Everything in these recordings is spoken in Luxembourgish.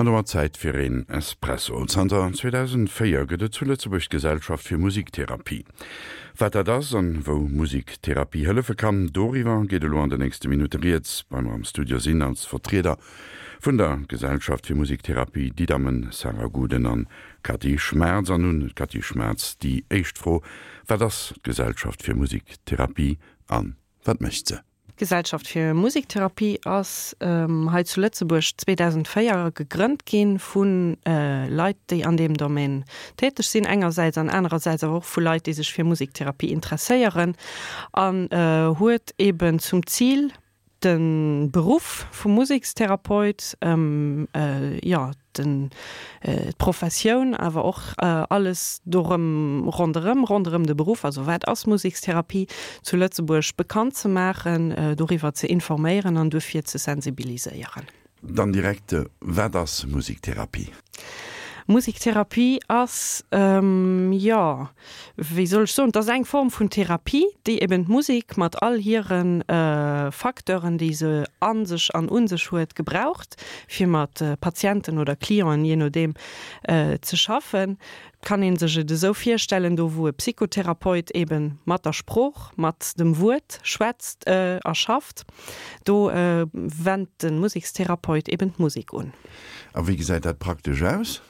An domat Zäit fir een Espresso. Zanter 2004 gëtt et zu Lëtzebuerg d'Gesellschaft fir Musiktherapie. Wat dat ass an wou Musiktherapie hëllefe kann, doriwwer geet elo an de nächste Minutte rieds. Bei mer am Studio sinn als Vertrieder vun der Gesellschaft fir Musiktherapie déi Dammen Sarah Guden an Cathy Schmaerz. An un d'Cathy Schmaerz déi éischt Fro, Wat ass d'Gesellschaft fir Musiktherapie an wat mécht se? D'Gesellschaft fir Musiktherapie ass hei zu Lëtzebuerg 2004 gegrënnt gi vu Leit, déi an deem Domaine täteg sinn engersäits an anerersäits awer och vu Leit, déi sech fir Musiktherapie interesséieren an huet eben zum Zil, de Beruff vum Musekstherapeut, jo, den, d'Professioun, awer och alles dorëm, ronderëm, ronderëm de Beruff, also wat ass Musekstherapie, zu Lëtzebuerg bekannt ze maachen, doriwwer ze informéieren an duerfir ze sensibiliséieren. Dann direkt, Wat ass Musiktherapie? Musiktherapie ass, jo, wéi soll ech soen, et ass eng Form vun Therapie, déi eben d'Musek mat all hire Facteuren, déi se a sech an un sech huet, gebraucht, fir mat Patienten oder Clienten, jee nodeem, ze schaffen. Et kann ee sech et esou virstellen, do wou e Psychotherapeut eben mat der Sprooch, mat dem Wuert schwätzt a schafft, do wennt de Musekstherapeut eben d'Musek un. A wéi gesäit dat praktesch aus?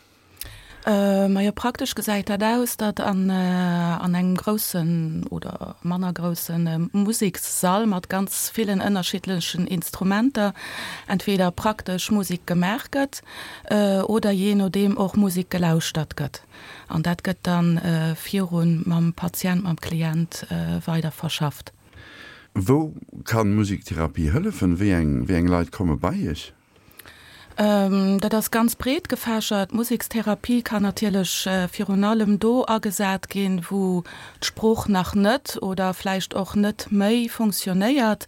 Majo, praktesch gesäit dat aus, datt an an engem groussen oder manner grousse Musekssall mat ganz villen ënnerschiddlechen Instrumenter entweder praktesch Musek gemaach gëtt oder jee nodeem och Musek gelauschtert gëtt. An dat gëtt dann virun mam Patient, mam Klient weider verschafft. Wou kann Musiktherapie hëllefen? Wéi eng wéi eng Leit komme bei Iech? Dat ass ganz breet gefächert. D'Musekstherapie kann natierlech virun allem do agesat ginn, wou d'Sprooch nach net oder vläicht och net méi funktionéiert,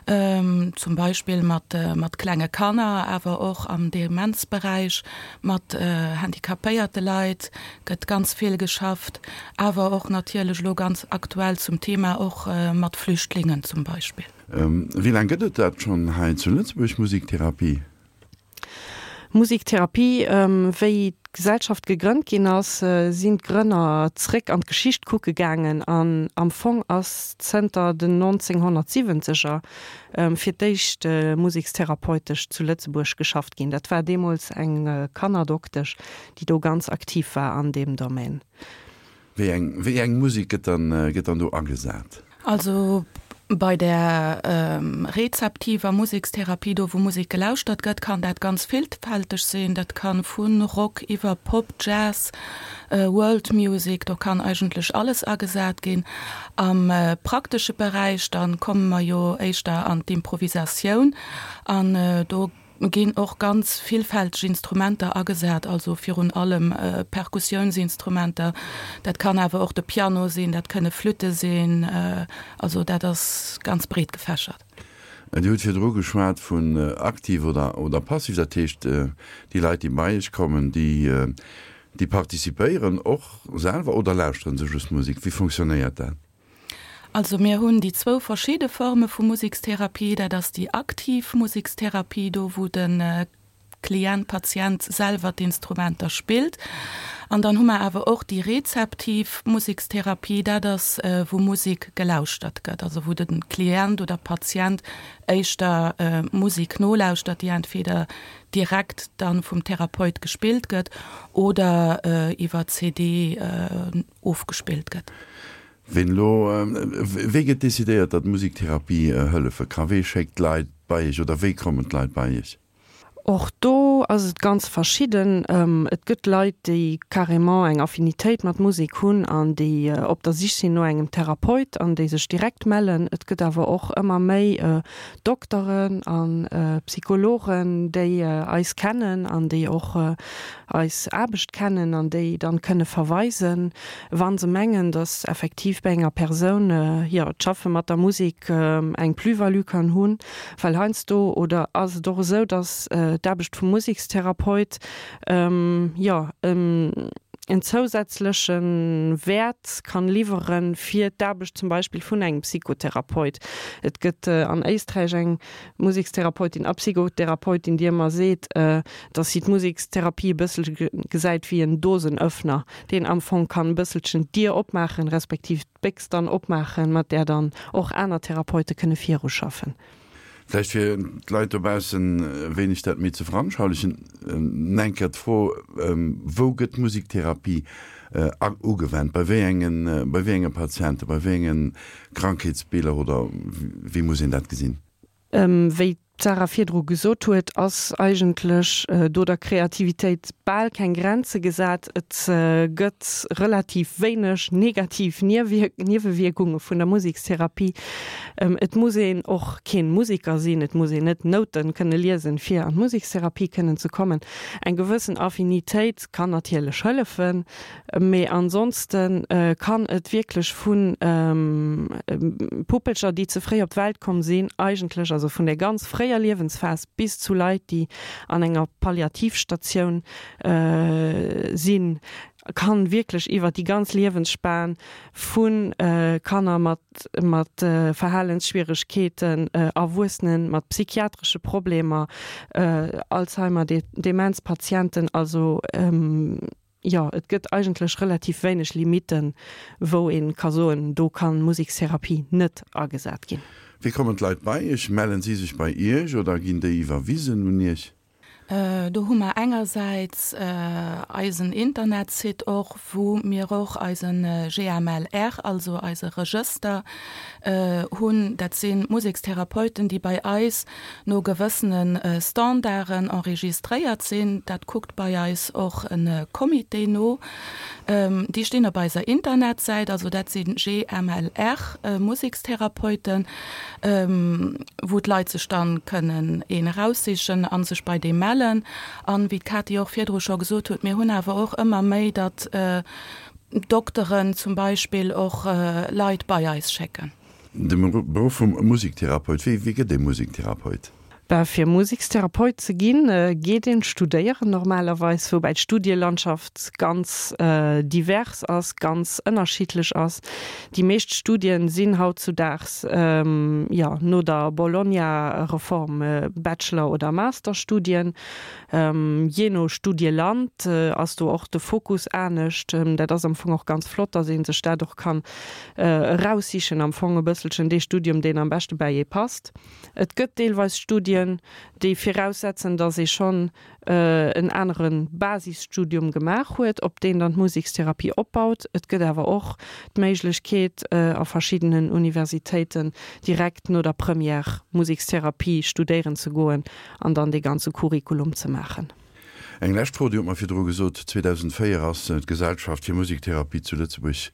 zum Beispill mat klenge Kanner, awer och am Demenzberäich, mat handicapéierte Leit gëtt ganz vill geschafft, awer och natierlech elo ganz aktuell zum Thema och mat Flüchtlingen zum Beispill. Wéi laang gëtt et dat schonn hei zu Lëtzebuerg, Musiktherapie? Musiktherapie, Wéi d'Gesellschaft gegrënnt ginn ass, sinn d'Grënner zréck an d'Geschicht kucke gaangen an am Fong ass zënter den 1970er fir d'éischt musekstherapeutesch zu Lëtzebuerg geschafft ginn. Dat war deemools eng Kannerdoktesch, déi do ganz aktiv war an deem Domaine. Wéi eng, wéi eng Musek gëtt dann, gëtt dann do agesat? Also bei der rezeptiver Musekstherapie, do wou Musek gelauschtert gëtt, kann dat ganz villfälteg sinn. Dat kann vu Rock iwwer Pop, Jazz, World Music, do kann eigentlech alles agesat ginn. Am praktesche Beräich, dann komme mer jo éischter an d'Improvisatioun an do ginn och ganz villfälteg Instrumenter agesat, also virun allem Perkussiounsinstrumenter, dat kann awer och de Piano sinn, dat kënne Flütte sinn, also dat ass ganz breet gefächert. Dir hutt virdru geschwat vun aktiv oder oder passiv, dat heescht déi Leit déi bei Iech kommen, déi déi participéieren och selwer oder lauschteren se just Musek? Wéi fonctionnéiert dat? Also mir hunn déi zwou verschidde Forme vu Musekstherapie. Dat ass déi aktiv Musekstherapie, do wou de Klient, Patient selwer d'Instrumenter spillt. An dann hu mer awer och déi rezeptiv Musekstherapie, dat ass wou Musek gelauschtert gëtt, also wou de Klient oder Patient éischter Musek nolauschtert, déi entweder direkt dann vum Therapeut gespillt gëtt oder iwwer CD ofgespillt gëtt. Ween elo, wéi gëtt decidéiert, datt Musiktherapie hëllefe ka? Wee schéckt d'Leit bei Iech oder wéi kommen d'Leit bei Iech? Och do ass et ganz verschidden. Et gëtt Leit, déi carrément eng Affinitéit mat Musek hunn an déi op der Sich sinn no engem Therapeut an déi sech direkt mellen. Et gëtt awer och ëmmer méi Dokteren a Psychologen, déi eis kennen an déi och eis Aarbecht kennen an déi dann kënne verweisen, wa se mengen, dass effektiv bei enger Persoun, jo, d'Schaffe mat der Musek eng Plus-value kann hunn. Well heiansdo, oder ass et och esou, dass d'Aarbecht vum Musekstherapeut, jo,. en zousätzleche Wäert kann liwwere fir d'Aarbecht zum Beispill vun engem Psychotherapeut. Et gëtt an Éisträich eng Musekstherapeutin a Psychotherapeutin, déi ëmmer seet, dass si d'Musekstherapie e bësselche gesäit wéi en Dosenöffner, deen am Fong kann e bësselchen d'Dier opmaachen, respektiv d'Béchs dann opmaachen, mat där dann och aner Therapeute kënne viruschaffen. Vläicht fir d'Leit dobaussen e wéineg dat méi ze veranschaulichen, eng Kéier d'Fro, Wou gëtt Musiktherapie ugewennt? Bei wéi engen, bei wéi enge Patienten, bei wéi enge Krankheetsbiller oder wéi muss een dat gesinn? Wéi d'Sarah virdru gesot huet, ass eigentlech do der Kreativitéit bal keng Grenze gesat. Et gëtt relativ wéineg negativ Niewewierkunge vun der Musekstherapie. Et muss een och keen Museker sinn, et muss een net Nouten kënne liesen, fir an d'Musekstherapie kënnen ze kommen. Eng gewëssen Affinitéit kann natierlech hëllefen, mee ansonsten kann et wierklech vu Puppelcher, déi ze fréi op d'Welt komm sinn, eigentlech, also vun der ganz fréier Liewensphas bis zu Leit, déi an enger Palliativstatioun sinn, kann wierklech iwwer déi ganz Liewensspan vu Kanner mat mat Verhalensschwieregkeeten, Erwuessenen mat psychiatresche Problemer, Alzheimer, Demenzpatienten, also jo, et gëtt eigentlech relativ wéineg Limitten, wou ee ka soen, do kann Musekstherapie net agesat ginn. Wéi kommen d'Leit bei Iech? Mellen si sech bei Iech oder ginn déi iwwerwisen un Iech? Do hu mer engersäits eisen Internetsite och, wou mir och eise GMLR, also eise Regëster hunn. Dat si Musekstherapeuten, déi bei eis no gewëssene Standarden enregistréiert sinn. Dat kuckt bei eis och e Comité no. Déi stinn op eiser Internetsäit, also dat si GMLR-Musekstherapeuten. wou d'Leit sech dann kënnen een eraussichen a sech bei deem mellen. An wéi d'Katy och virdru scho gesot huet, mir hunn awer och ëmmer méi, datt Dokteren zum Beispill och Leit bei eis schécken. De Beruff vum Musiktherapeut, wéi gëtt ee Musiktherapeut? Ben, fir Musekstherapeut ze ginn, geet een studéieren normalerweis, woubäi d'Studielandschaft ganz divers ass, ganz ënnerschiddlech ass. Déi meescht Studien sinn hautzudaags, jo, no der Bologna-Reform Bachelor oder Masterstudien. Jee no Studieland ass do och de Fokus anescht. Dat ass am Fong och ganz flott, dass ee sech dat och kann eraussichen, am Fong e bësselchen dee Studium, deen am beschte bäi ee passt. Et gëtt deelweis Studien, déi viraussetzen, datt ee schonn en anere Basisstudium gemaach huet, op deen dann d'Musekstherapie opbaut. Et gëtt awer och d'Méiglechkeet, a verschiddenen Universitéiten direkt no der Première Musekstherapie studéieren ze goen an dann dee ganze Curriculum ze maachen. Eng lescht Fro, Dir hutt mer virdru gesot, 2004 ass d'Gesellschaft fir Musiktherapie zu Lëtzebuerg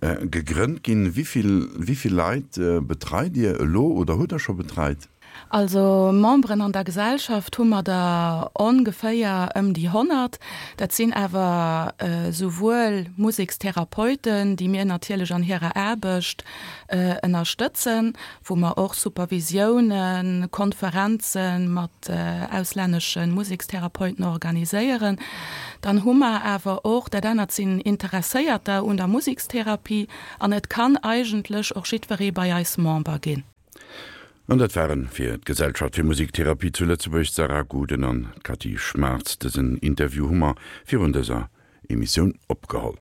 gegrënnt ginn. Wéi vill, wéi vill Leit betreit Dir elo oder hutt Der scho betreit? Also Memberen an der Gesellschaft hu mer der ongeféier ëm déi 100. Dat sinn awer souwuel Musekstherapeuten, déi mir natierlech an hirer Aarbecht ënnerstëtzen, wou mer och Supervisiounen, Konferenze mat auslännesche Musekstherapeuten organiséieren. Dann hu mer awer och, dat anert sinn Interesséierter un der Musekstherapie an et kann eigentlech och jiddweree bei eis Member ginn. An dat waren fir d'Gesellschaft fir Musiktherapie zu Lëtzebuerg d'Sarah Guden an d'Cathy Schmartz. Dësen Interview hu mer virun dëser Emissioun opgeholl.